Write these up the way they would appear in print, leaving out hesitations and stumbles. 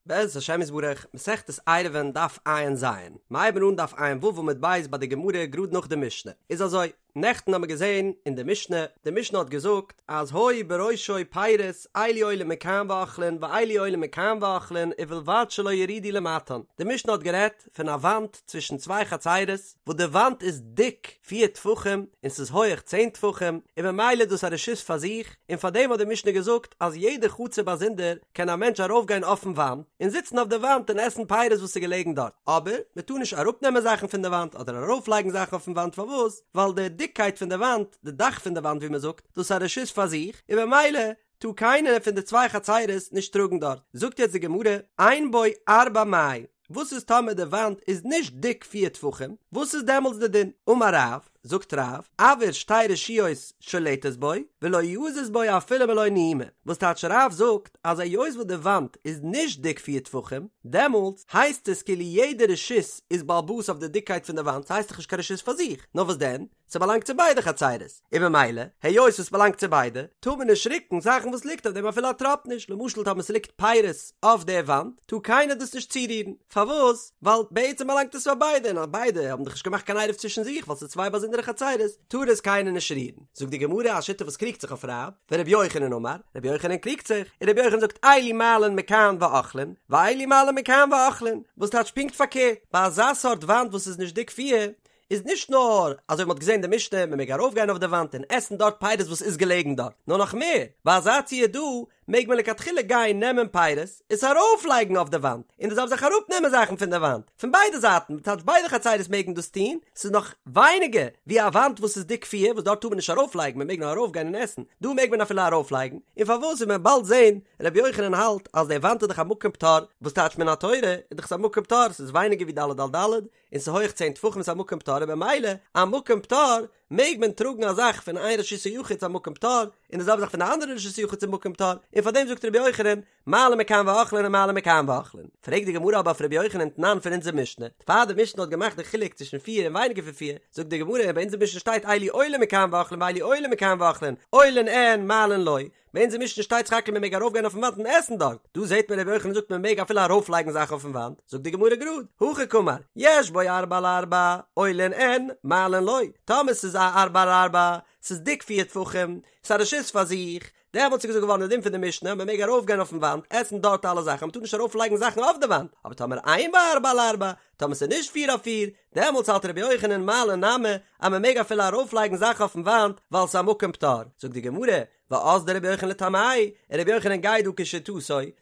בעזרת השם יתברך, מסכת עירובין דף ע"ז, מ'הייבן אן דף ע"ו עמוד ב' ביי די גמרא גראד נאך די משנה, איז אזוי, נעכטן האמיר געזען אין די משנה, די משנה האט געזאגט אז היו בראשו פירות אלו עולין מכאן ואוכלין ואלו עולין מכאן ואוכלין ובלבד שלא יורידו למטן, די משנה האט גערעדט פון א וואנט צווישן צוויי חצירות וואס די וואנט איז דיק פיר טפחים און ס'איז הויעך צען טפחים און ממילא איז דאס א רשות פאר זיך, און פארדעם האט די משנה געזאגט אז יעדע חצר באזונדער קען א מענטש ארויפגיין אויפן וואנט און זיצן אויף די וואנט און עסן פירות וואס איז געלעגן דארט, אבער מען טאר נישט אראפנעמען זאכן פון די וואנט אדער ארויפלייגן זאכן אויפן וואנט פארוואס? ווייל די דיקקייט פון די וואנט, די דאך פון די וואנט ווי מען זאגט, דאס איז א רשות פאר זיך, און ממילא טאר קיינער פון די צוויי חצרות נישט טראגן דארט. זאגט יעצט די גמרא, אין בו ארבעה מאי, וואס איז טאמער די וואנט איז נישט דיק פיר טפחים, וואס איז דעמאלטס די דין? אמר רב, זאגט רב, אויר שתי רשויות שולטת בו, ולא יזיז בו אפילו מלא נימא, וואס טייטש רב זאגט אז היות וואס די וואנט איז נישט דיק פיר טפחים, דעמאלטס הייסט עס כאילו יעדע רשות איז בעל הבית אויף די דיקקייט פון די וואנט, ס'הייסט דאך נישט קיין רשות פאר זיך, נאר וואס דען? ס'באלאנגט צו ביידע חצירות, און ממילא, היות עס באלאנגט צו ביידע, טאר מען נישט רוקן זאכן וואס ליגט אויף דעם אפילו א טראפ נישט, למשל טאמער ס'ליגט פירות אויף די וואנט, טאר קיינער דאס נישט צורירן, פארוואס? ווייל בעצם באלאנגט עס פאר ביידע, און ביידע האבן דאך נישט געמאכט קיין עירוב צווישן זיך ווייל ס'איז צוויי באזונדערע חצירות, טאר עס קיינער נישט רירן. זאגט די גמרא א שיטה וואס קריגט זיך אויף רב, ורבי יוחנן אמר, רבי יוחנן קריגט זיך, און רבי יוחנן זאגט אלו מעלין מכאן ואוכלין, ואלו מעלין מכאן ואוכלין, וואס טייטש פונקט פארקערט, ביי אזא סארט וואנט וואס איז נישט דיק פיר, איז נישט נאר אזוי ווי מ'האט געזען די משנה מ'מעג ארויפגיין אויף די וואנט און עסן דארט פירות וואס איז געלעגן דארט, נאר נאך מער, ביי אזא ציור דא מעג מען לכתחילה גיין נעמען פירות עס ארויפלייגן אויף די וואנט, און די זעלבע זאך אראפנעמען זאכן פון די וואנט, פון ביידע זייטן, טייטש ביידע חצירות מעגן דאס טון, ס'איז נאך ווייניגער ווי א וואנט וואס איז דיק פיר וואס דארט טאר מען נישט ארויפלייגן מ'מעג נאר ארויפגיין און עסן, דא מעג מען אפילו ארויפלייגן, און פארוואס וועט מען באלד זען, רבי יוחנן האלט אז די וואנט איז דאך א מקום פטור, וואס טייטש מן התורה איז דאך עס א מקום פטור, ס'איז ווייניגער ווי ד' על ד', און ס'איז הויעך צען טפחים ס'איז א מקום פטור און במילא א מקום פטור מעג מען טראגן א זאך פון איין רשות היחיד צו א מקום פטור און די זעלבע זאך פון די אנדערע רשות היחיד צום מקום פטור און פאר דעם זאגט רבי יוחנן מעלין מכאן ואוכלין און מעלין מכאן ואוכלין פרעגט די גמרא אבער אויף רבי יוחנן תנן פון אונזער משנה פאר די משנה האט געמאכט די חילוק צווישן פיר און ווייניגער פון פיר זאגט די גמרא ביי אונזער משנה שטייט אלו עולין מכאן ואוכלין ואלו עולין מכאן ואוכלין עולין אין מעלין לא ביי אונזער משנה שטייט סך הכל מען מעג ארויפגיין אויפן וואנט און עסן דארט, דא זעט מען רבי יוחנן זאגט מען מעג אפילו ארויפלייגן זאכן אויפן וואנט, זאגט די גמרא גראד, הכי קאמר, יש בו ארבעה על ארבעה, עולין אין, מעלין לא, טאמער ס'איז א ארבעה על ארבעה, ס'איז דיק פיר טפחים, ס'איז א רשות פאר זיך, דעמאלטס איז געזאגט געווארן די דין פון די משנה, מען מעג ארויפגיין אויפן וואנט, עסן דארט אלע זאכן, מען טאר נישט ארויפלייגן זאכן אויף די וואנט, אבער טאמער אין בו ארבעה על ארבעה, טאמער ס'איז נישט פיר אויף פיר, דעמאלטס האלט רבי יוחנן מעלין נמי אז מען מעג אפילו ארויפלייגן זאכן אויפן וואנט ווייל ס'איז א מקום פטור, זאגט די גמרא, ואזדא רבי יוחנן לטעמיה, און רבי יוחנן גייט דא כשיטתו,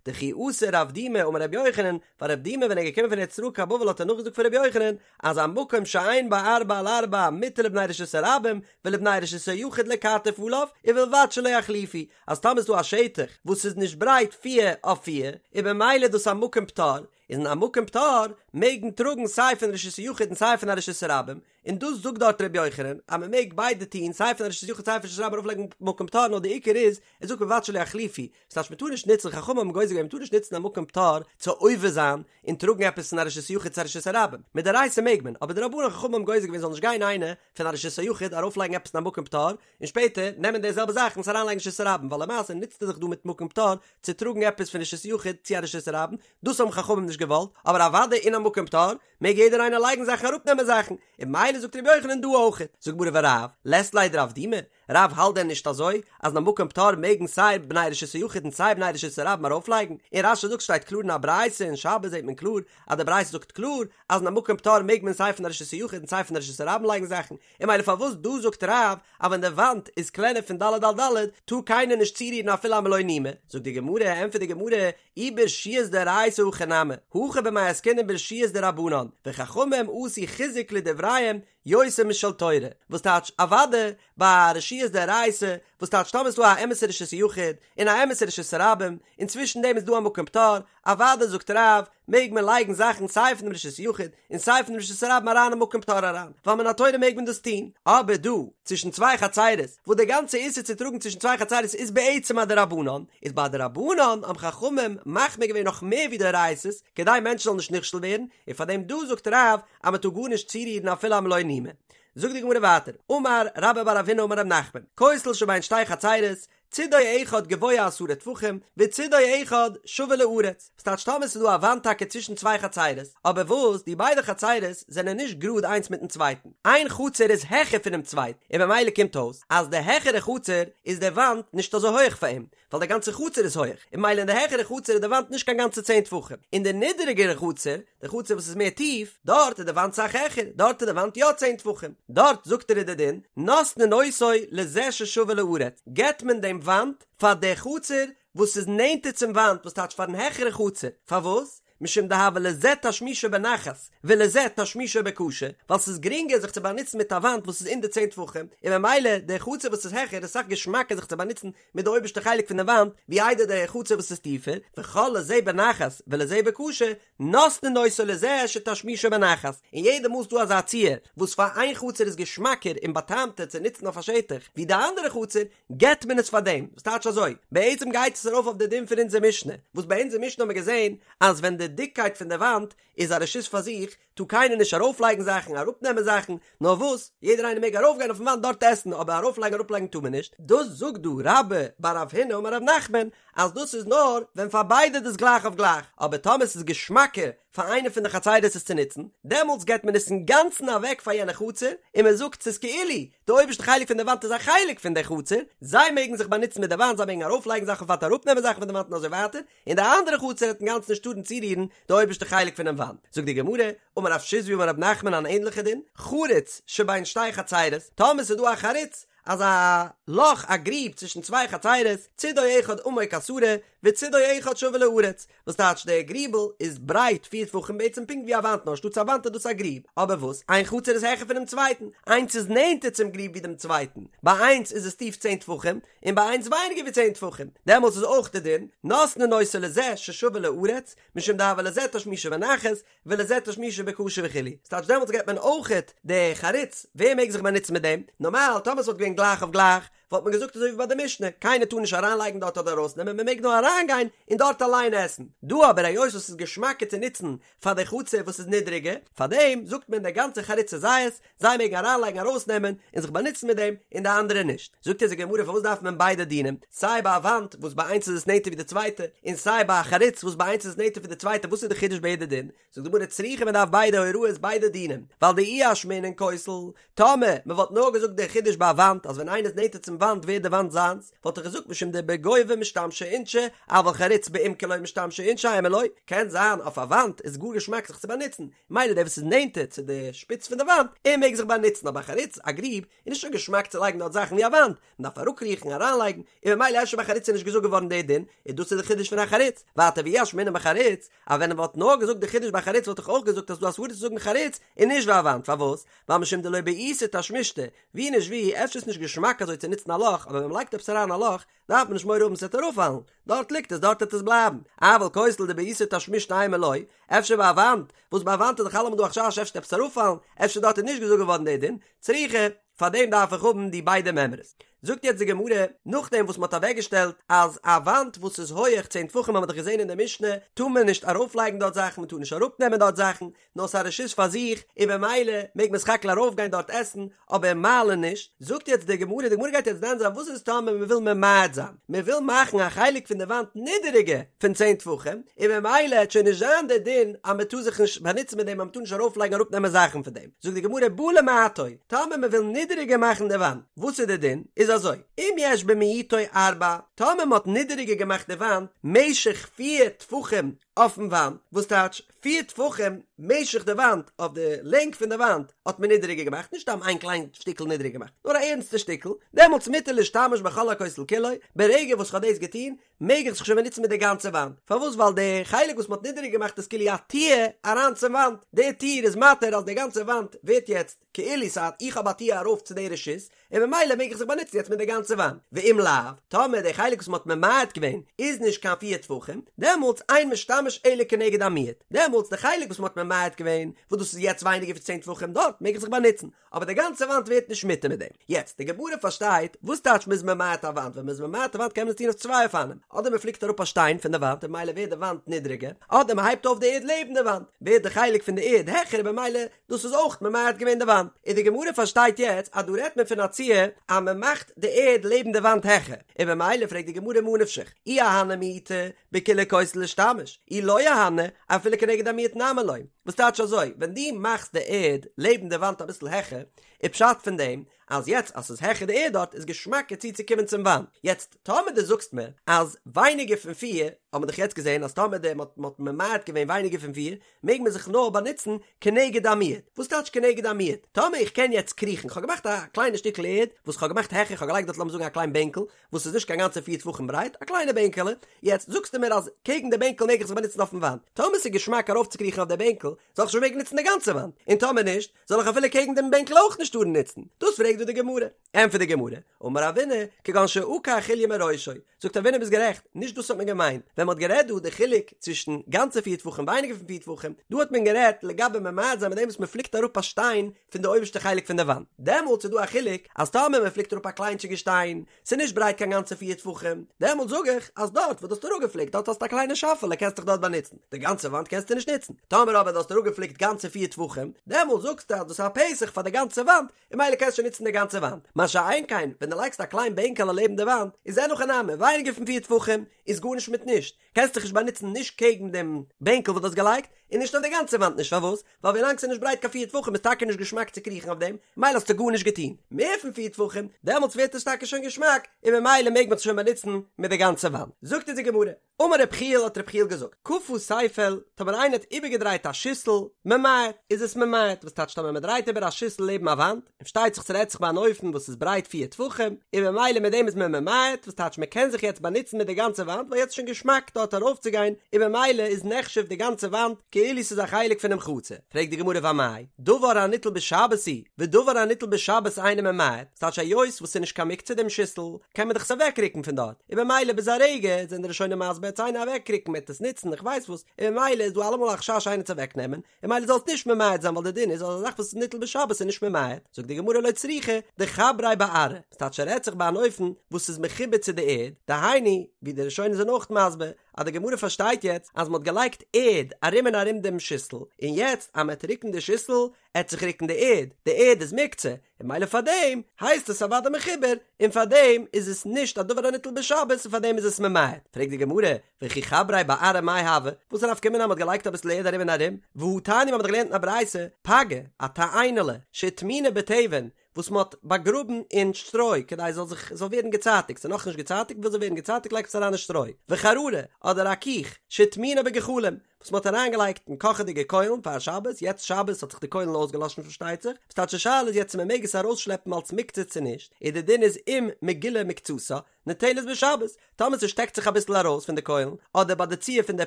דכי אתא רב דימי אמר רבי יוחנן, ווייל רב דימי ווען ער איז געקומען פון ארץ ישראל קיין בבל האט ער נאכגעזאגט פון רבי יוחנן, אז המקום שאין בו ארבעה על ארבעה מותר לבני רשות הרבים ולבני רשות היחיד לכתף עליו, ובלבד שלא יחליפו, אז טאמער איז דא א שטח וואס איז נישט ברייט פיר אויף פיר, איז במילא דאס א מקום פטור, איז אין א מקום פטור מעג מען טראגן סיי פון רשות היחיד און סיי פון א רשות הרבים, און דאס זאגט דארט ר' יוחנן אז מען מעג ביידע טון סיי פון א רשות יחיד סיי פון רשות הרבים ארויפלייגן מקום פטור נאר די עיקר איז ער זאגט ובלבד שלא יחליפו וואס טייטש מען טאר נישט נוצן חכמים האבן גוזר געווען מען טאר נישט נוצן א מקום פטור צו עובר זיין און טראגן עפעס פון א רשות יחיד צו א רשות הרבים מדאורייתא מעג מען אבער דרבנן חכמים האבן גוזר געווען זאל נישט גיין איינער פון א רשות היחיד ארויפלייגן עפעס אין א מקום פטור און שפעטער נעמען די זעלבע זאך און עס אריינלייגן אין רשות הרבים ווייל למעשה נוצט ער זיך דא מיט מקום פטור צו טראגן עפעס פון רשות יחיד צו א רשות הרבים דאס האבן חכמים נישט געוואלט אבער אוודאי אין א מקום פטור מעג יעדער איינער לייגן זאכן אראפנעמען זאכן, און ממילא זאגט רבי יוחנן דא אויך. זאגט גמרא ורב, לית ליה דרב דימי, רב האלט דען נישט אזוי אז אין א מקום פטור מעגן סיי בני רשות היחיד און סיי בני רשות הרבים ארויפלייגן, און רש"י זאגט שטייט קלאר אין א ברייתא אין שבת זעט מען קלאר אז די ברייתא זאגט קלאר אז אין א מקום פטור מעג מען סיי פון א רשות היחיד און סיי פון א רשות הרבים לייגן זאכן, און ממילא פארוואס דא זאגט רב אז ווען די וואנט איז קלענער פון ד' על ד' טאר קיינער נישט צורירן אפילו א מלא נימא, זאגט די גמרא, ענטפערט די גמרא, אי ברשויות דאורייתא הכי נמי, הכא במאי עסקינן ברשויות דרבנן, וחכמים עשו חיזוק לדבריהם יותר משל תורה, וואס טייטש אוואדע ביי רשויות דאורייתא, וואס טייטש טאמער איז דא א אמת'ע רשות היחיד און א אמת'ע רשות הרבים, און צווישן דעם איז דא א מקום פטור, אוואדע זאגט רב, מעג מען לייגן זאכן סיי פון דעם רשות היחיד און סיי פון דעם רשות הרבים אריין אין מקום פטור אריין, ווייל מן התורה מעג מען דאס טון, אבער דא, צווישן צוויי חצירות, וואס דער גאנצע איסור צו טראגן צווישן צוויי חצירות איז בעצם א דרבנן, איז ביי דרבנן האבן חכמים מחמיר געווען נאך מער ווי דאורייתא'ס, כדי מענטשן זאלן נישט נכשל ווערן, און פאר דעם דא זאגט רב אז מען טאר גארנישט צורירן אפילו א מלא נימא. זאגט די גמרא ווייטער, אמר רבה בר רב הונא אמר רב נחמן, כותל שבין שתי חצירות, צידו אחד גבוה עשרה טפחים, וצידו אחד שווה לארץ, וואס טייטש טאמער ס'איז דא א וואנט טאקע צווישן צוויי חצירות, אבער וואס די ביידע חצירות זענען נישט גראד איינס מיטן צווייטן, איין חצר איז העכער פונעם צווייטן, און במילא קומט אויס אז די העכערע חצר איז די וואנט נישט אזוי הויעך פאר אים, ווייל די גאנצע חצר איז הויעך, און במילא אין די העכערע חצר איז די וואנט נישט קיין גאנצע צען טפחים, אין די נידעריגערע חצר, די חצר וואס איז מער טיף, דארט איז די וואנט סאך העכער, דארט איז די וואנט יא צען טפחים, דארט זאגט ער איז די דין, נותנין אותו לזה ששווה לארץ, געבט מען דעם וואנט פאר די חצר וואס איז נענטער צום וואנט, וואס טייטש פארן העכערע חצר, פארוואס? משום דהוה לזה תשמישו בנחת ולזה תשמישו בקשה, ווייל ס'איז גרינגער זיך צו באנוצן מיט א וואנט וואס איז אין די צען טפחים, און ממילא די חצר וואס איז העכער איז סאך געשמאקער זיך צו באנוצן מיט די אויבערשטע חלק פון די וואנט ווי איידער די חצר וואס איז טיפער, וכל לזה בנחת ולזה בקשה, נותנין אותו לזה שתשמישו בנחת, און יעדע מאל ס'דא אזא ציור וואס פאר איין חצר איז געשמאקער און באטעמטער צו נוצן אויף א שטח ווי די אנדערע חצר, געבט מען עס פאר דעם, וואס טייטש אזוי? בעצם גייט עס ארויף אויף די דין פון אונזער משנה, וואס ביי אונזער משנה האבן מיר געזען אז ווען די דיקקייט פון די וואנט איז א רשות פאר זיך, טאר קיינער נישט ארויפלייגן זאכן, אראפנעמען זאכן, נאר וואס, יעדער איינער מעג ארויפגיין אויפן וואנט דארט עסן, אבער ארויפלייגן אראפלייגן טאר מען נישט, דאס זאגט דא רבה בר רב הונא אמר רב נחמן, אז דאס איז נאר ווען פאר ביידע איז דאס גלייך אויף גלייך, אבער טאמער ס'איז געשמאקער פאר איינע פון די חצירות עס צו נוצן, דעמאלטס געבט מען עס אינגאנצן אוועק פאר יענע חצר, און מען זאגט ס'איז כאילו די אויבערשטע חלק פון די וואנט איז א חלק פון די חצר, זיי מעגן זיך באנוצן מיט די וואנט, זיי מעגן ארויפלייגן זאכן אויף וואנט אראפנעמען זאכן פון די וואנט און אזוי ווייטער, און די אנדערע חצר וועט אינגאנצן נישט טארן צורירן די אויבערשטע חלק פונעם וואנט. זאגט די גמרא, אמר רב שיזבי אמר רב נחמן אן ענליכע דין, חריץ שבין שתי חצירות, טאמער ס'איז דא א חריץ, אזא לאך א גריב צווישן צוויי חצירות, צידו אחד עמוק עשרה, וצידו אחד שווה לארץ, וואס טייטש דער גריבל איז ברייט פיר טפחים בעצם פונקט ווי א וואנט נאר שטאטס א וואנט איז דאס א גריב, אבער וואס איין חצר איז העכער פונעם צווייטן, איינס איז נענטער צום גריב ווי דעם צווייטן, ביי איינס איז עס טיף צען טפחים, און ביי איינס ווייניגער ווי צען טפחים, דעמאלטס איז אויך די דין, נותנין אותו לזה ששווה לארץ, משום דהוה לזה תשמישו בנחת, ולזה תשמישו בקשה וכו', ס'טייטש דעמאלטס געבט מען אויכעט די חריץ, ווער מעג זיך באנוצן מיט דעם? נארמאל טאמער ס'וואלט געווען גלייך אויף גלייך, וואלט מען געזאגט אזוי ווי ביי די משנה, קיינער טאר נישט אריינלייגן דארט אדער ארויסנעמען, מען מעג נאר אריינגיין און דארט אליין עסן. דא אבער היות עס איז געשמאקער צו נוצן פאר די חצר וואס איז נידריגער, פארדעם זאגט מען די גאנצע חריץ איז זייערס, זיי מעגן אריינלייגן ארויסנעמען און זיך באנוצן מיט דעם, און די אנדערע נישט. זאגט אונז די גמרא פארוואס דארף מען ביידע דינים, סיי ביי א וואנט וואס ביי איינס איז עס נענטער ווי די צווייטע, און סיי ביי א חריץ וואס ביי איינס איז עס נענטער פון די צווייטע, וואס איז די חידוש ביי יעדע דין? זאגט די גמרא צריכא מען דארף ביידע הוראות ביידע דינים, ווייל דאי אשמעינן כותל, טאמער מען וואלט נאר געזאגט די חידוש ביי א וואנט אז ווען איינער איז נענטער צום וואנט ווערט די וואנט זיינס, וואלט איך געזאגט משום דבגובה משתמשי אינשי, אבל חריץ בעומקא לא משתמשי אינשי אימא לא, קען זיין אויף א וואנט איז גאר געשמאק זיך צו באנוצן, מילא דער וואס איז נענטער צו די שפיץ פון די וואנט, ער מעג זיך באנוצן, אבער א חריץ, א גריב, איז נישט אזוי געשמאק צו לייגן דארט זאכן ווי א וואנט, מען דארף אראפקריכן, אריינלייגן, און ממילא אפשר ביי חריץ איז נישט געזאגט געווארן דער דין, און דאס איז די חידוש פון א חריץ. ווייטער ואי אשמעינן בחריץ, אז ווען מען וואלט נאר געזאגט די חידוש ביי חריץ וואלט איך אויך געזאגט אז ס'דא א סברא צו זאגן חריץ און נישט ביי א וואנט, פארוואס? ווייל משום דלא בעיתא תשמישתא, ווי נישט ווי, אפשר איז נישט געשמאק אזוי צו נוצן א לאך, אבער ווען מען לייגט עפעס אריין א לאך, דארף מען נישט מורא האבן ס'וועט אראפפאלן, דארט ליגט עס דארט וועט עס בלייבן, אבל כותל דבעיתו תשמישתא אימא לא, אפשר ביי א וואנט, וואס ביי א וואנט איז דאך אלעמאל דא א חשש אפשר וועט עפעס אראפפאלן, אפשר דארט איז נישט געזאגט געווארן דער דין, צריכא, פאר דעם דארף איך האבן די ביידע מימרות. זאגט יעצט די גמרא, נאכדעם וואס מ'האט אוועקגעשטעלט אז א וואנט וואס איז הויעך צען טפחים האבן מיר דאך געזען אין די משנה, טאר מען נישט ארויפלייגן דארט זאכן, מ'טאר נישט אראפנעמען דארט זאכן, נאר ס'איז א רשות פאר זיך, און במילא מעג מען סך הכל ארויפגיין דארט עסן, אבער מעלין נישט. זאגט יעצט די גמרא, די גמרא גייט יעצט דן זיין וואס איז טאמער מען וויל ממעט זיין, מען וויל מאכן א חלק פון די וואנט נידעריגער פון צען טפחים, און במילא העט שוין נישט זיין די דין אז מען טאר זיך נישט באנוצן מיט דעם אז מען טאר נישט ארויפלייגן אראפנעמען זאכן פון דעם. זאגט די גמרא, בא למעטו, טאמער מען וויל נידעריגער מאכן די וואנט, וואס איז די דין? איז אזוי, אם יש במיעוטו ארבעה, טאמער מען האט נידעריגער געמאכט די וואנט משך פיר טפחים אויפן וואנט, וואס טייטש פיר טפחים משך די וואנט, אויף די לענג פון די וואנט האט מען נידעריגער געמאכט, נישט סתם איין קליין שטיקל נידעריגער געמאכט, נאר א ערנסטע שטיקל, דעמאלטס מותר להשתמש בכל הכותל כולו, ברגע וואס כ'האב דאס געטון, מעג איך זיך שוין באנוצן מיט די גאנצע וואנט, פארוואס ווייל די חלק וואס מ'האט נידעריגער געמאכט איז כאילו א טיר אריין צום וואנט, די טיר איז מתיר אז די גאנצע וואנט ווערט יעצט כאילו ס'האט איך האב א טיר ארויף צו די רשות, און ממילא מעג איך זיך באנוצן יעצט מיט די גאנצע וואנט, ואם לאו, טאמער די חלק וואס מ'האט ממעט געווען איז נישט קיין פיר טפחים, דעמאלטס אין משתמש אלא כנגד המיעוט, דעמאלטס די חלק וואס מ'האט ממעט געווען, וואס דאס איז יעצט ווייניגער ווי צען טפחים, דארט מעג איך זיך באנוצן, אבער די גאנצע וואנט ווערט נישט מותר מיט דעם. יעצט, די גמרא פארשטייט, וואס טייטש מ'איז ממעט א וואנט, ווען מ'איז ממעט א וואנט קען מען עס טון אויף צוויי אופנים, אדער מען פליקט אראפ א שטיין פון די וואנט און ממילא ווערט די וואנט נידריגער, אדער מען הייבט אויף די ערד לעבן די וואנט, ווערט די חלק פון די ערד העכער און במילא דאס איז אויך ממעט געווען די וואנט. און די גמרא פארשטייט יעצט אז דא רעדט מען פון א ציור אז מען מאכט די ערד לעבן די וואנט העכער, און במילא פרעגט די גמרא מה נפשך, אי אהני מיעוטא בכולי כותל לישתמש, אי לא אהני אפילו כנגד המיעוט נמי לא. וואס טייטש אזוי, ווען דו מאכסט די ערד לעבן די וואנט אביסל העכער, איז פשט פון דעם אז יעצט אז ס'איז העכער די ערד דארט איז געשמאקער צוצוקומען צום וואנט, יעצט טאמער דו זאגסט מיר אז ווייניגער פון פיר, האט מען דאך יעצט געזען אז טאמער די מ'האט מ'האט ממעט געווען ווייניגער פון פיר, מעג מען זיך נאר באנוצן כנגד המיעוט, וואס טייטש כנגד המיעוט? טאמער איך קען יעצט קריכן, כ'האב געמאכט א קליינע שטיקל ערד וואס כ'האב געמאכט העכער, כ'האב געלייגט דארט לאמיר זאגן א קליין בענקל, וואס איז נישט קיין גאנצע פיר טפחים ברייט, א קליינע בענקעלע, יעצט זאגסטו מיר אז קעגן די בענקל מעג איך זיך באנוצן אויפן וואנט, טאמער ס'איז געשמאק ארויפצוקריכן אויף די בענקל, זאל איך שוין מעגן נוצן די גאנצע וואנט, און טאמער נישט, זאל איך אפילו קעגן דעם בענקל אויך נישט טארן נוצן? דאס פרעגט דא די גמרא. ענטפערט די גמרא, אמר רבינא, כגון שעקר חוליא מראשו, זאגט רבינא ביסט גערעכט, נישט דאס האט מען געמיינט, ווען מען האט גערעדט דא די חילוק צווישן גאנצע פיר טפחים ווייניגער פון פיר טפחים, דא האט מען גערעדט לגבי ממעט זיין מיט דעם וואס מען פליקט אראפ א שטיין פון די אויבערשטע חלק פון די וואנט, דעמאלטס איז דא א חילוק אז טאמער מען פליקט אראפ א קליינטשיגע שטיין, ס'איז נישט ברייט קיין גאנצע פיר טפחים, דעמאלט זאג איך אז דארט וואו דו האסט אראפגעפליקט דארט האסטו א קליינע שאפעלע קענסט דיך דארט באנוצן, די גאנצע וואנט קענסטו נישט נוצן, טאמער אבער דו האסט אראפגעפליקט גאנצע פיר טפחים, דעמאלט זאגסטו אז דאס איז א פתח פאר די גאנצע וואנט, און ממילא קענסטו שוין נוצן די גאנצע וואנט, מה שאין כן ווען דו לייגסט א קליין בענקעלע לעבן די וואנט, איז אין הכי נמי, ווייניגער פון פיר טפחים איז גארנישט מיט נישט, קענסט דיך נישט באנוצן נישט קעגן דעם בענקל וואס דו האסט געלייגט, און נישט אויף די גאנצע וואנט נישט, פארוואס? ווייל ווילאנג ס'איז נישט ברייט קיין פיר טפחים איז טאקע נישט געשמאק צו קריכן אויף דעם, ממילא האסטו גארנישט געטון. מער פון פיר טפחים, דעמאלטס ווערט עס טאקע שוין געשמאק, און ממילא מעג מען זיך שוין באנוצן מיט די גאנצע וואנט. זאגט אונז די גמרא, אמר רב יחיאל האט רב יחיאל געזאגט, כפה ספל, טאמער איינער האט איבערגעדרייט א שיסל, ממעט, איז עס ממעט, וואס טייטש טאמער מ'דרייט איבער א שיסל לעבן א וואנט, און פארשטייט זיך ס'רעדט זיך ביי אן אופן וואס איז ברייט פיר טפחים, און ממילא מיט דעם איז מען ממעט, וואס טייטש מ'קען זיך יעצט באנוצן מיט די גאנצע וואנט ווייל יעצט איז שוין געשמאק דארט ארויפצוגיין, און ממילא איז נחשב די גאנצע וואנט כאילו ס'איז א חלק פונעם חצר. פרעגט די גמרא ואמאי, דבר הניטל בשבת הוא, ודבר הניטל בשבת אינו ממעט, ס'טייטש היות וואס ס'איז נישט קיין מוקצה דעם שיסל, קען מען דאך עס אוועקרוקן פון דארט, און ממילא ביז א רגע זענען די ראשונים מסביר עט עס איינער אוועקרוקן מ'עט עס נוצן איך ווייס וואס, און ממילא איז דא אלעמאל א חשש איינער צו אוועקנעמען, און ממילא זאל עס נישט ממעט זיין ווייל די דין איז אז א זאך וואס איז ניטל בשבת איז נישט ממעט, זאגט די גמרא לא צריכא דחבריה בארעא, ס'טייטש ס'רעדט זיך ביי אן אופן וואס איז מחובר צו די ערד, דהיינו, ווי די ראשונים זענען אויך מסביר, אז די גמרא פארשטייט יעצט אז מ'האט געלייגט ערד ארום און ארום דעם שיסל, און יעצט אז מ'עט רוקן די שיסל, עט זיך רוקן די ערד, די ערד איז מוקצה, און ממילא פארדעם הייסט עס אוודאי מחובר, און פארדעם איז עס נישט א דבר הניטל בשבת און פארדעם איז עס ממעט, פרעגט די גמרא, וכי חבריה בארעא מאי הוי, וואס איז א נפקא מינה אז מ'האט געלייגט אביסל ערד ארום און ארום, והא תניא מ'האט דאך געלערנט אין א ברייתא, פגה, א תאנה'לע, שהטמינה בתבן, וואס מ'האט באגראבן אין שטרוי כדי עס זאל זיך זאל ווערן געצייטיגט, ס'איז נאכנישט געצייטיגט, וויל זאל ווערן געצייטיגט לייגט עס אריין אין שטרוי, וחררה, אדער א קיך, שהטמינה בגחלים, וואס מ'האט אריינגעלייגט אין קאכעדיגע קוילן פאר שבת, יעצט שבת האט זיך די קוילן אויסגעלאשן פארשטייט זיך, וואס טייטש די שאלה איז יעצט צו מ'מעג עס ארויסשלעפן אלס מוקצה צו נישט, און די דין איז אם מגולה מקצתה, ניטלת בשבת, טאמער ס'שטעקט זיך אביסל ארויס פון די קוילן, אדער ביי די ציור פון די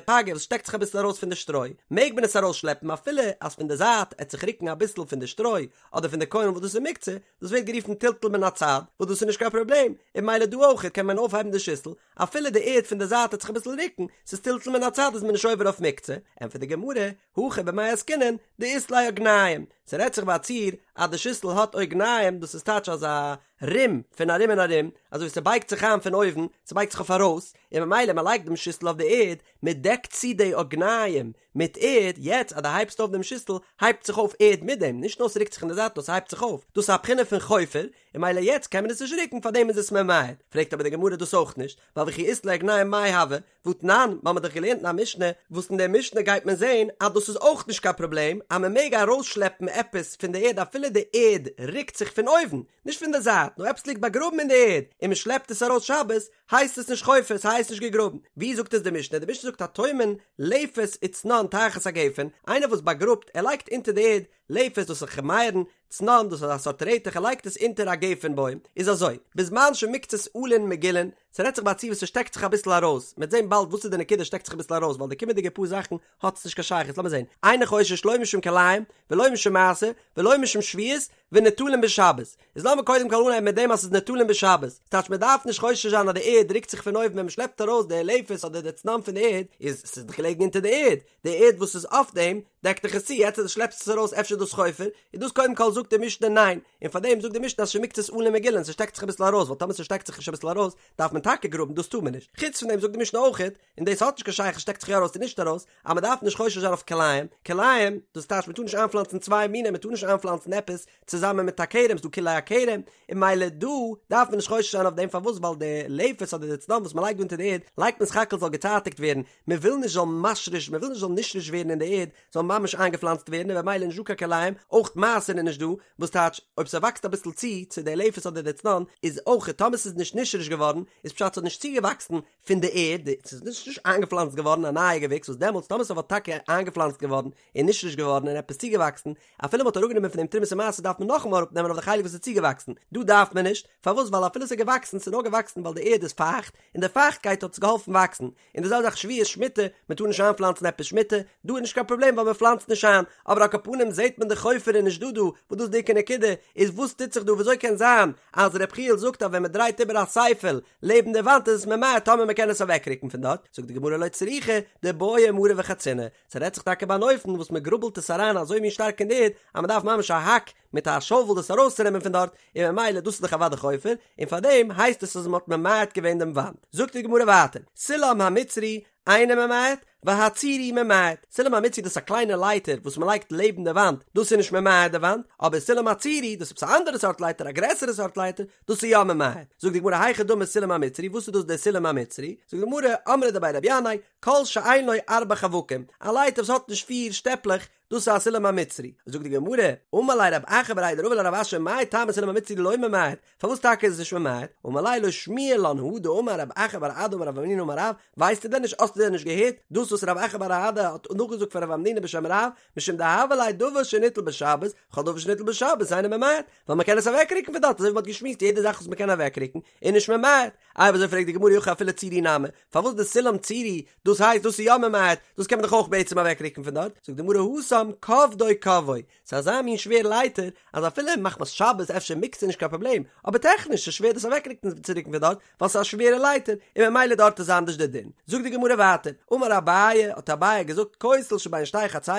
פגה וואס שטעקט זיך אביסל ארויס פון די שטרוי, מעג מען עס ארויסשלעפן אפילו אז פון די זייט עט זיך רוקן אביסל פון די שטרוי אדער פון די קוילן וואס דאס איז מוקצה, דאס ווערט גערופן טלטול מן הצד, וואס דאס איז נישט קיין פראבלעם, און ממילא דא אויכעט קען מען אויפהייבן די שיסל, אפילו די ערד פון די זייט עט זיך אביסל רוקן, ס'איז טלטול מן הצד איז מען נישט עובר אויף מוקצה, ענטפערט די גמרא, הכא במאי עסקינן, דאית ליה אוגניים, ס'רעדט זיך ביי א ציור אז די שיסל האט אוגניים, דאס איז טייטש אזא רום פון ארום און ארום, אזוי ווי ס'בייגט זיך איין פון אויבן, ס'בייגט זיך אויף ארויס, און ממילא מ'לייגט דעם שיסל אויף די ערד, מ'דעקט צו די אוגניים מיט ערד, יעצט אז דו הייבסט אויף דעם שיסל, הייבט זיך אויף ערד מיט דעם, נישט נאר ס'רוקט זיך אין די זייט נאר ס'הייבט זיך אויף, דאס איז א בחינה פון חופר, און ממילא יעצט קען מען עס נישט רוקן פארדעם איז עס ממעט, פרעגט אבער די גמרא דאס אויך נישט, ווייל וכי אית ליה אוגניים מאי הוי, והתנן, מיר האבן דאך געלערנט אין א משנה, וואס אין דער משנה גייט מען זען אז דאס איז אויך נישט קיין פראבלעם, אז מען מעג ארויסשלעפן עפעס פון די ערד אפילו די ערד רוקט זיך פון אויבן, נישט פון די זייט, נאר עפעס ליגט באגראבן אין די ערד, און מען שלעפט עס ארויס שבת, הייסט עס נישט חופר, ס'הייסט נישט געגראבן. ווי זאגט עס די משנה? די משנה זאגט הטומן לפת וצנון תחת הגפן, איינער וואס באגראבט, ער לייגט אונטער די ערד, לפת דאס איז מייערן, צנון דאס איז א סארט רעטעך ער לייגט עס אונטער א גפן בוים, איז אזוי, בזמן שמקצת עלין מגולין, ס'רעדט זיך ביי א ציור וואס ס'שטעקט זיך אביסל ארויס, מ'עט זען באלד וואס איז די נקודה שטעקט זיך אביסל ארויס ווייל די קומענדיגע פאר זאכן האט עס נישט קיין שייכות, לאמיר זען, אינו חושש לא משום כלאים ולא משום מעשר ולא משום שביעית וניטלין בשבת, איז לאמיר קודם כל אנהייבן מיט דעם אז ס'איז ניטלין בשבת, ס'טייטש מ'דארף נישט חושש זיין אז די ערד רוקט זיך פון אויבן ווען מ'שלעפט ארויס די לפת אדער די צנון פון די ערד, איז ס'איז דאך געלעגן אונטער די ערד, די ערד וואס איז אויף דעם. דעקט דאך עס צו, יעצט אז דו שלעפסט עס ארויס אפשר איז דאס חופר, איז דאס קודם כל זאגט די משנה ניין, און פארדעם זאגט די משנה אז שמקצת עלין מגולין, ס'שטעקט זיך אביסל ארויס, ווייל טאמער ס'שטעקט זיך נישט אביסל ארויס, דארף מען טאקע גראבן, דאס טאר מען נישט. חוץ פון דעם זאגט די משנה אויכעט, און דאס האט נישט קיין שייכות שטעקט זיך יא ארויס צו נישט ארויס, אז מען דארף נישט חושש זיין אויף כלאים, כלאים, דאס טייטש מען טאר נישט איינפלאנצן צוויי מינים, מען טאר נישט איינפלאנצן עפעס צוזאמען מיט א כרם, ס'דא כלאי הכרם, און ממילא דא דארף מען נישט חושש זיין אויף דעם, פארוואס ווייל די לפת אדער די צנון וואס מען לייגט דא אונטער די ערד, לייגט מען סך הכל זאל געצייטיגט ווערן, מען וויל נישט זאל משריש, מען וויל נישט זאל נשרש ווערן אין די ערד, זאל ממש איינגעפלאנצט ווערן און במילא נישט דא קיין כלאים, אויך מעשר איז נישט דא, וואס טייטש אויב ס'וואקסט אביסל צו צו די לפת אדער די צנון, איז אויך טאמער ס'איז נישט נשרש געווארן, איז פשט ס'האט נישט צוגעוואקסן פון די ערד, ס'איז נישט נישט איינגעפלאנצט געווארן א נייע געוויקס וואס דעמאלטס טאמער ס'וואלט טאקע איינגעפלאנצט געווארן און נשרש געווארן און עפעס צוגעוואקסן, אפילו מ'האט אראפגענומען פון דעם תרומת ומעשר דארף מען נאכאמאל אראפנעמען אויף די חלק וואס איז צוגעוואקסן, דא דארף מען נישט, פארוואס ווייל אפילו ס'איז געוואקסן ס'איז נאר געוואקסן ווייל די ערד איז פייכט, און די פייכטקייט האט עס געהאלפן וואקסן, און די זעלבע זאך שביעית שמיטה, מען טאר נישט איינפלאנצן עפעס שמיטה, דא איז נישט קיין פראבלעם ווייל מען פלאנצט נישט איין, אבער על כל פנים זעט מען די חופר איז נישט דא דא, וואס דאס איז די עיקר נקודה, איז וואס טוט זיך דא וויאזוי קען זיין אז ר' יחיאל זאגט אז ווען מען דרייט איבער א ספל לעבן די וואנט איז עס ממעט טאמער מען קען עס אוועקרוקן פון דארט, זאגט די גמרא לא צריכא דבעיא מרא וחצינא, ס'רעדט זיך טאקע ביי אן אופן וואס מען גראבלט עס אריין אזוי מין שטארק אין די ערד אז מען דארף ממש א האק מיט א שאוול דאס ארויסצונעמען פון דארט, און ממילא דאס איז דאך אוודאי חופר, און פארדעם הייסט עס אז מען האט ממעט געווען דעם וואנט. זאגט די גמרא ווייטער, סולם המצרי אינו ממעט, והצורי ממעט, סולם המצרי דאס איז א קליינע לייטער וואס מען לייגט לעבן די וואנט, דאס איז נישט ממעט די וואנט, אבער סולם הצורי דאס איז עפעס א אנדערע סארט לייטער א גרעסערע סארט לייטער, דאס איז יא ממעט. זאגט די גמרא היכי דמי סולם המצרי, וואס איז דאס דער סולם המצרי? זאגט די גמרא, אמרי דבי רבי ינאי, כל שאין לו ארבעה חווקים, א לייטער וואס האט נישט פיר שטעפלעך, דאס איז א סולם המצרי. זאגט די גמרא, אמר ליה רב אחא בריה דרבא לרב אשי מאי טעמא סולם המצרי לא ממעט, פארוואס טאקע איז עס נישט ממעט? אמר ליה לא שמיע לן הא דאמר רב אחא בר אדא אמר רב המנונא אמר רב, ווייסטו דען נישט האסטו דען נישט געהערט דאס וואס רב אחא בר אדא האט נאכגעזאגט פון רב המנונא בשם רב, משום דהוה ליה דבר שניטל בשבת, כל דבר שניטל בשבת אינו ממעט, ווייל מען קען עס אוועקרוקן פון דארט אזוי ווי מען האט געשמועסט יעדע זאך וואס מען קען אוועקרוקן איז נישט ממעט, אויב אזוי פרעגט די גמרא אי הכי אפילו צורי נמי, פארוואס די סולם צורי, דאס הייסט דאס איז יא ממעט, דאס קען מען דאך אויך בעצם אוועקרוקן פון דארט, זאגט די גמרא התם כובדו קבעו, ס'איז אזא מין שווער לייטער, אז אפילו מחמת שבת אפשר מוקצה נישט קיין פראבלעם, אבער טעכניש איז שווער דאס אוועקרוקן צו רוקן פון דארט, ווייל ס'איז א שווערע לייטער, און ממילא דארט איז אנדערש די דין. זאגט די גמרא ווייטער, אמר אביי, האט אביי געזאגט כותל שבין שתי חצרות,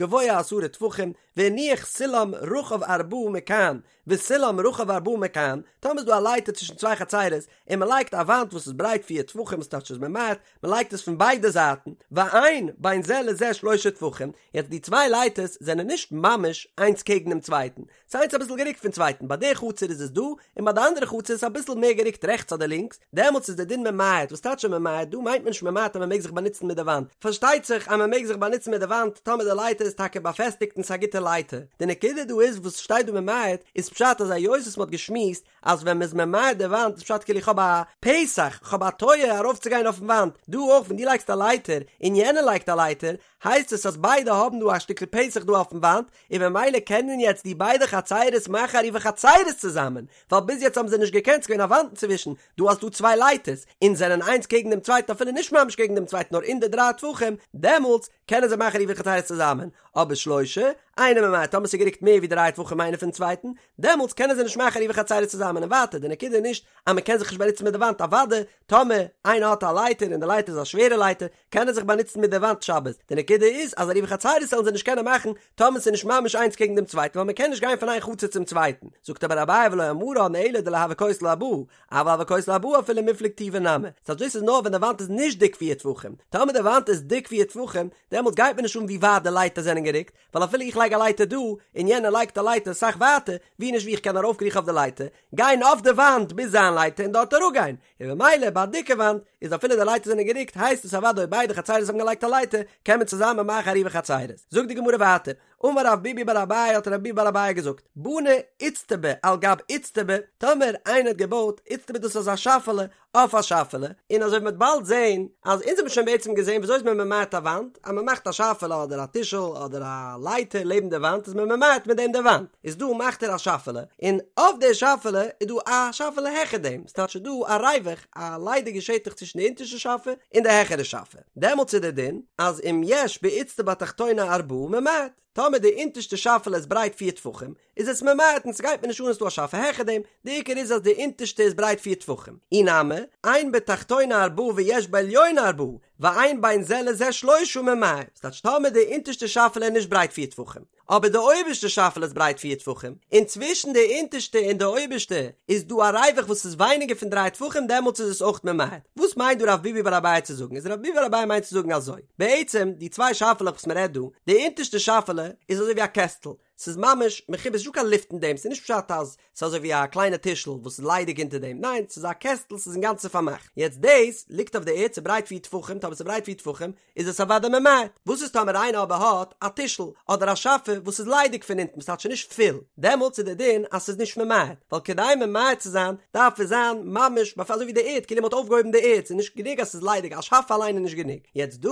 גבוה עשרה טפחים, והניח סולם רחב ארבעה מכאן, וסולם רחב ארבעה מכאן, טאמער איז דא א לייטער צווישן צוויי חצרות, און מען לייגט א וואנט וואס איז ברייט פיר טפחים וואס טייטש איז ממעט, מען לייגט עס פון ביידע זייטן, ואין בין זה לזה שלושה טפחים, יעצט די צוויי לייטערס זענען נישט ממש איינס קעגן דעם צווייטן, ס'איז איינס אביסל גערוקט פון צווייטן, ביי די חצר איז עס דא, און ביי די אנדערע חצר איז עס אביסל מער גערוקט רעכטס אדער לינקס, דעמאלטס איז די דין ממעט, וואס טייטש ממעט? דא מיינט מען נישט ממעט אז מען מעג זיך באנוצן מיט די וואנט, פארשטייט זיך אז מען מעג זיך באנוצן מיט די וואנט טאמער די לייטער איז טאקע באפעסטיגט און ס'איז א גוטע לייטער, די נקודה דא איז וואס שטייט דא ממעט איז פשט אז היות וואס מען האט געשמועסט אז ווען מען איז ממעט די וואנט איז פשט כאילו איך האב א פתח, איך האב א טויער ארויפצוגיין אויפן וואנט, דא אויך ווען דו לייגסט א לייטער און יענער לייגט א לייטער הייסט עס אז ביידע האבן דא א שטיקל פתח דא אויפן וואנט, און ממילא קענען יעצט די ביידע חצרות מאכן עירובי חצרות צוזאמען, ווייל ביז יעצט האבן זיי נישט געקענט, ס'געווען א וואנט אינצווישן, דא האסטו צוויי לייטערס, און זענען איינס קעגן דעם צווייטן אפילו נישט ממש קעגן דעם צווייטן נאר אין די דריי טפחים, דעמאלטס קענען זיי מאכן עירובי חצרות צוזאמען, אבער שלושה, אינו ממעט, טאמער ס'איז גערוקט מער ווי דריי טפחים איינער פון צווייטן, דעמאלטס קענען זיי נישט מאכן עירובי חצרות צוזאמען, און ווייטער, די נקודה איז נישט אז מ'קען זיך נישט באנוצן מיט די וואנט, אוודאי טאמער איינער האט א לייטער און די לייטער איז א שווערע לייטער, קען ער זיך באנוצן מיט די וואנט שבת, די נקודה איז אז עירובי חצרות זאלן זיי נישט קענען מאכן טאמער ס'איז נישט ממש איינס קעגן דעם צווייטן ווייל מ'קען נישט גיין פון איין חצר צום צווייטן, זאגט אבער אביי ולא אמרן אלא דלא הוי כותל ארבעה, אבל הוי כותל ארבעה אפילו מיפלג טובא נמי, ס'הייסט דאס איז נאר ווען די וואנט איז נישט דיק פיר טפחים, טאמער די וואנט איז דיק פיר טפחים דעמאלטס גייט מיר נישט אן ווי ווייט די לייטער זענען גערוקט, ווייל אפילו איך לייג א לייטער דא, און יענער לייגט א לייטער אסאך ווייטער, ווי נישט ווי איך קען ארויפקריכן אויף די לייטער, גיין אויף די וואנט ביז זיין לייטער און דארט אראפגיין, און במילא ביי א דיקע וואנט איז אפילו די לייטער זענען גערוקט הייסט עס אוודאי אויב ביידע חצרות האבן געלייגט א לייטער קען מען צוזאמען מאכן עירובי חצרות. זאגט די גמרא ווייטער, אמר רב ביבי בר אביי האט רב ביבי בר אביי געזאגט, בנה איצטבא על גב איצטבא, טאמער איינער האט געבויט איצטבא דאס איז אזא שאפעלע אויף א שאפעלע, און אזוי ווי מ'וועט באלד זעהן אז אונז האבן שוין בעצם געזעהן וויאזוי איז מען ממעט א וואנט, אז מ'מאכט א שאפעלע אדער א טישל אדער א לייטער לעבן די וואנט איז מען ממעט מיט דעם די וואנט, איז דא מאכט ער א שאפעלע, און אויף די שאפעלע איז דא א שאפעלע העכער דעם, ס'טייטש ס'איז דא א ריווח, א ליידיגע שטח צווישן די אונטערשטע שאפע און די העכערע שאפע, דעמאלטס איז דער דין אז אם יש באיצטבא התחתונה ארבעה ממעט, טאמער די אונטערשטע שאפעלע איז ברייט פיר טפחים, איז עס ממעט און ס'גייט מיר נישט אן אז ס'דא א שאפע העכער דעם, די עיקר איז אז די אונטערשטע איז ברייט פיר טפחים. אי נמי, אין בתחתונה ארבעה ויש בעליונה ארבעה, ואין בין זה לזה שלושה ממעט, ס'טייטש טאמער די אונטערשטע שאפעלע איז נישט ברייט פיר טפחים, אבער די אויבערשטע שאפעלע איז ברייט פיר טפחים, און צווישן די אונטערשטע און די אויבערשטע איז דא א ריווח וואס איז ווייניגער פון דריי טפחים דעמאלטס איז עס אויך ממעט. וואס מיינט דא רב ביבי בר אביי צו זאגן? איז רב ביבי בר אביי מיינט צו זאגן אזוי, בעצם די צוויי שאפעלעך וואס מ'רעדט דא, די אונטערשטע שאפעלע איז אזוי ווי א קעסטל, ס'איז ממש מחובר, ס'איז נישטא קיין לופט אין דעם, ס'איז נישט פשט אז ס'איז אזוי ווי א קליינע טישל וואס איז ליידיג אונטער דעם, ניין, ס'איז א קעסטל, ס'איז אינגאנצן פארמאכט. יעצט דאס ליגט אויף די ערד, ס'איז ברייט פיר טפחים, טאמער ס'איז ברייט פיר טפחים, איז עס אוודאי ממעט. וואס איז טאמער איינער אבער האט א טישל אדער א שאפע וואס איז ליידיג פון אונטן, ס'טייטש ס'איז נישט פול, דעמאלטס איז דער דין אז ס'איז נישט ממעט, ווייל כדי ממעט צו זיין דארף עס זיין ממש באפ אזוי ווי די ערד, כאילו מ'האט אויפגעהויבן די ערד, ס'איז נישט גענוג אז ס'איז ליידיג, א שאפע אליין איז נישט גענוג. יעצט דא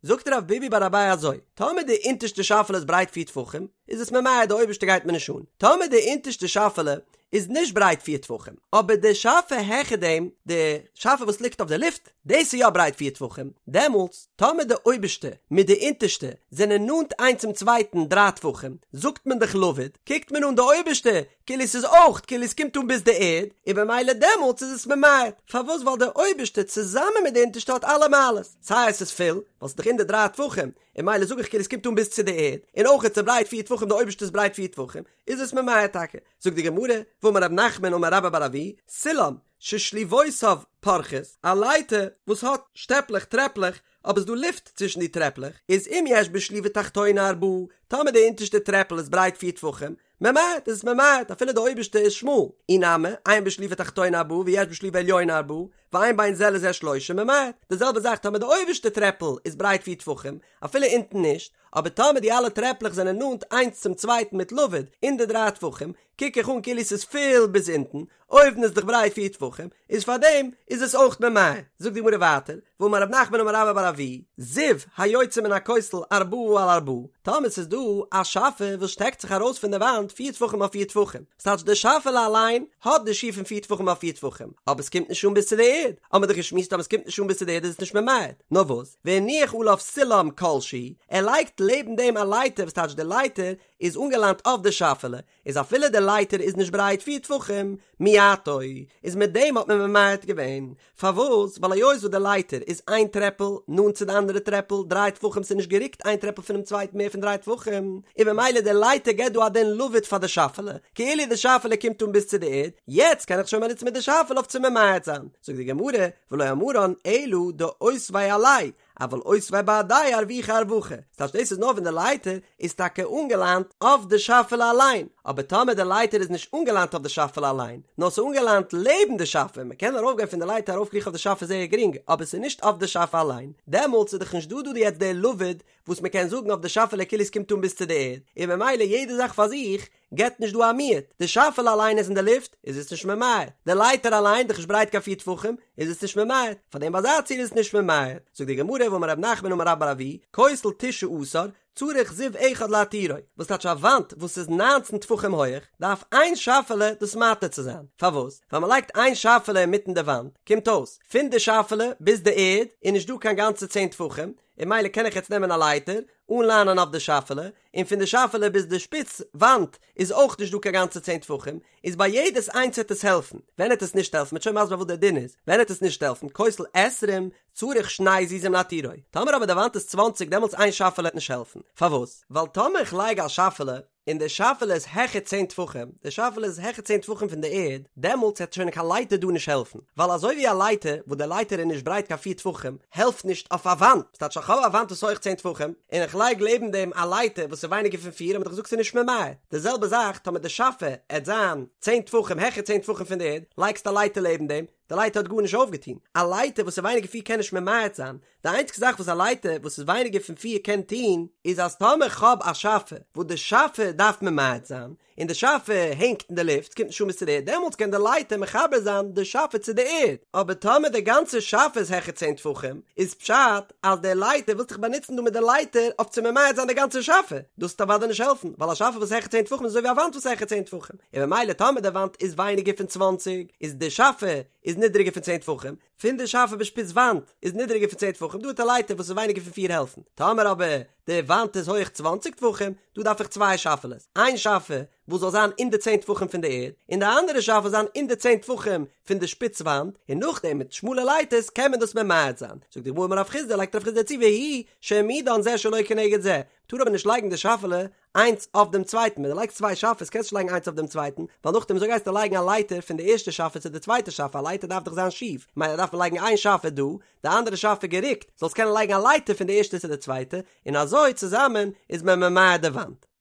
זאגט רב ביבי בר אביי אזוי, טאמער די אונטערשטע שאפעלע איז ברייט פיר טפחים, איז עס ממעט, די אויבערשטע גייט מיר נישט אן. טאמער די אונטערשטע שאפעלע איז נישט ברייט פיר טפחים, אבער די שאפע העכער דעם, די שאפע וואס ליגט אויף די לופט, דאס איז יא ברייט פיר טפחים, דעמאלטס, טאמער די אויבערשטע מיט די אונטערשטע זענען נאנט איינס צום צווייטן דריי טפחים, זאגט מען דאך לבוד, קוקט מען אן די אויבערשטע כאילו ס'איז אויך כאילו ס'קומט אן ביז די ערד, און במילא דעמאלטס איז עס ממעט, פארוואס ווייל די אויבערשטע צוזאמען מיט די אונטערשטע האט אלע מעלות, סיי עס איז פול, ווייל ס'איז דאך אין די דריי טפחים, און במילא זאג איך כאילו ס'קומט אן ביז צו די ערד, און אויך איז ברייט פיר טפחים די אויבערשטע איז ברייט פיר טפחים, איז עס ממעט טאקע. זאגט די גמרא, ואמר רב נחמן אמר רבה בר אבוה, סולם ששליבותיו פורחות, א לייטער וואס האט שטעפלעך טרעפלעך, אבער ס'דא לופט צווישן די טרעפלעך, איז אם יש בשליבה תחתונה ארבעה, טאמער די אונטערשטע טרעפל איז ברייט פיר טפחים, ממעט איז עס ממעט אפילו די אויבערשטע איז שמאל, אי נמי, אין בשליבה תחתונה ארבעה ויש בשליבה עליונה ארבעה, ואין בין זה לזה שלושה ממעט, די זעלבע זאך טאמער די אויבערשטע טרעפל איז ברייט פיר טפחים, אפילו אונטן נישט, אבער טאמער די אלע טרעפלעך זענען נאנט איינס צום צווייטן מיט לבוד אין די דריי טפחים, קוק איך אן כאילו ס'איז פול ביז אונטן, אויבן איז דאך ברייט פיר טפחים, איז פארדעם איז עס אויך ממעט. זאגט די גמרא ווייטער, ואמר רב נחמן אמר רבה בר אבוה, זיו היוצא מן הכותל ארבעה על ארבעה, טאמער ס'איז דא א שאפע וואס שטעקט זיך ארויס פון די וואנט פיר טפחים אויף פיר טפחים, ס'טייטש די שאפעלע אליין האט די שיעור פון פיר טפחים אויף פיר טפחים, אבער ס'קומט נישט אן ביז צו די ערד, האמיר דאך געשמועסט אז ס'קומט נישט אן ביז צו די ערד איז עס נישט ממעט, נאר וואס, והניח עליו סולם כל שהוא, ער לייגט לעבן דעם א לייטער וואס טייטש די לייטער איז אנגעלאנט אויף די שאפעלע, איז אפילו די לייטער איז נישט ברייט פיר טפחים, מיעטו, איז מיט דעם האט מען ממעט געווען. פארוואס? ווייל היות וואס די לייטער איז איין טרעפל נאנט צו די אנדערע טרעפל דריי טפחים ס'איז נישט גערוקט איין טרעפל פונעם צווייטן מער פון דריי טפחים, און במילא די לייטער געבט דא א דין לבוד פאר די שאפעלע, כאילו די שאפעלע קומט אן ביז צו די ערד, יעצט קען איך שוין באנוצן מיט די שאפעלע אויף צו ממעט זיין. זאגט די גמרא, ולא אמרן אלא דאותביה עליה, אבל אותביה בהדיה ארווחי ארווחא, ס'טייטש דאס איז נאר ווען די לייטער איז טאקע אנגעליינט אויף די שאפעלע אליין, אבער טאמער די לייטער איז נישט אנגעליינט אויף די שאפעלע אליין, נאר ס'איז אנגעליינט לעבן די שאפע, מ'קען ארויפגיין פון די לייטער ארויפקריכן אויף די שאפע זייער גרינג, אבער ס'איז נישט אויף די שאפע אליין, דעמאלטס איז דאך נישט דא דא יעצט די לבוד וואס מ'קען זאגן אויף די שאפעלע כאילו עס קומט אן ביז צו די ערד, און ממילא יעדע זאך פאר זיך געבט נישט דא א מיעוט, די שאפעלע אליין איז אין די לופט, איז עס נישט ממעט, די לייטער אליין דאך נישט ברייט קיין פיר טפחים, איז עס נישט ממעט, פאר דעם ביי אזא ציור איז עס נישט ממעט. זאגט די גמרא ואמר רב נחמן אמר רבה בר אבוה, כותל תשעה עשר, צריך זיו אחד להתירו, וואס טייטש א וואנט וואס איז ניינצן טפחים הויעך, דארף איין שאפעלע דאס מתיר צו זיין, פארוואס? ווייל מען לייגט איין שאפעלע אינמיטן די וואנט, קומט אויס, פון די שאפעלע ביז די ערד איז נישט דא קיין גאנצע צען טפחים, און ממילא קען איך יעצט נעמען א לייטער, אנליינען אויף די שאפעלע, און פון די שאפעלע ביז די שפיץ וואנט איז אויך נישט דא קיין גאנצע צען טפחים, איז ביי יעדעס איינס העט עס העלפן, ווען העט עס נישט העלפן, מ'עט שוין מסביר וואס דער דין איז, ווען העט עס נישט העלפן, כותל עשרים צריך שני זיזים להתירו, טאמער אבער די וואנט איז צוואנציג דעמאלטס איין שאפעלע העט נישט העלפן, פארוואס? ווייל טאמער איך לייג א שאפעלע און די שאפעלע איז העכער צען טפחים, די שאפעלע איז העכער צען טפחים פון די ערד, דעמאלטס העט שוין קיין לייטער דא נישט העלפן, ווייל אזוי ווי א לייטער, וואס די לייטער איז נישט ברייט קיין פיר טפחים, העלפט נישט אויף א וואנט, ס'טייטש איך האב א וואנט וואס איז הויך צען טפחים, און איך לייג לעבן דעם א לייטער וואס איז ווייניגער פון פיר, האט מען דאך געזאגט ס'איז נישט ממעט, די זעלבע זאך טאמער די שאפע עט זיין צען טפחים העכער צען טפחים פון די ערד, לייגסט א לייטער לעבן דעם, די לייטער האט גארנישט אויפגעטון, א לייטער וואס איז ווייניגער פיר קען נישט ממעט זיין, די איינציגסטע זאך וואס א לייטער וואס איז ווייניגער פון פיר קען טון, איז אז טאמער כ'האב א שאפע וואס די שאפע דארף ממעט זיין, און די שאפע הענגט אין די לופט, קומט נישט אן ביז צו די ערד, דעמאלטס קען די לייטער מחבר זיין די שאפע צו די ערד, אבער טאמער די גאנצע שאפע איז העכער צען טפחים, איז פשט אז די לייטער ווילסט דיך באנוצן דא מיט די לייטער אויף צו ממעט זיין די גאנצע שאפע, דאס וועט אוודאי נישט העלפן, ווייל א שאפע וואס איז העכער צען טפחים איז אזוי ווי א וואנט וואס איז העכער צען טפחים, און ממילא טאמער די וואנט איז ווייניגער פון צוואנציג, איז די שאפע. איז נידריגער פון צען טפחים, פון די שאפע ביז שפיץ וואנט איז נידריגער פון צען טפחים, דא האט א לייטער וואס איז ווייניגער פון פיר העלפן, טאמער אבער די וואנט איז הויעך צוואנציג טפחים, דא דארף איך צוויי שאפעלעס, איין שאפע וואס זאל זיין אין די צען טפחים פון די ערד, און די אנדערע שאפע זיין אין די צען טפחים פון די שפיץ וואנט, און נאכדעם מיט שמאלע לייטערס קען מען דאס ממעט זיין. זאגט די גמרא אמר רב חסדא, לייגט רב חסדא צו והוא שהעמידן זה שלא כנגד זה, מ'טאר אבער נישט לייגן די שאפעלע איינס אויף דעם צווייטן, ווען דו לייגסט צוויי שאפעס קענסטו נישט לייגן איינס אויף דעם צווייטן, ווייל נאכדעם וויאזוי גייסטו לייגן א לייטער פון די ערשטע שאפע צו די צווייטע שאפע, א לייטער דארף דאך זיין שיף, ממילא דארף מען לייגן איין שאפע דא, די אנדערע שאפע גערוקט, זאלסט קענען לייגן א לייטער פון די ערשטע צו די צווייטע, און אזוי צוזאמען איז מען ממעט די וואנט.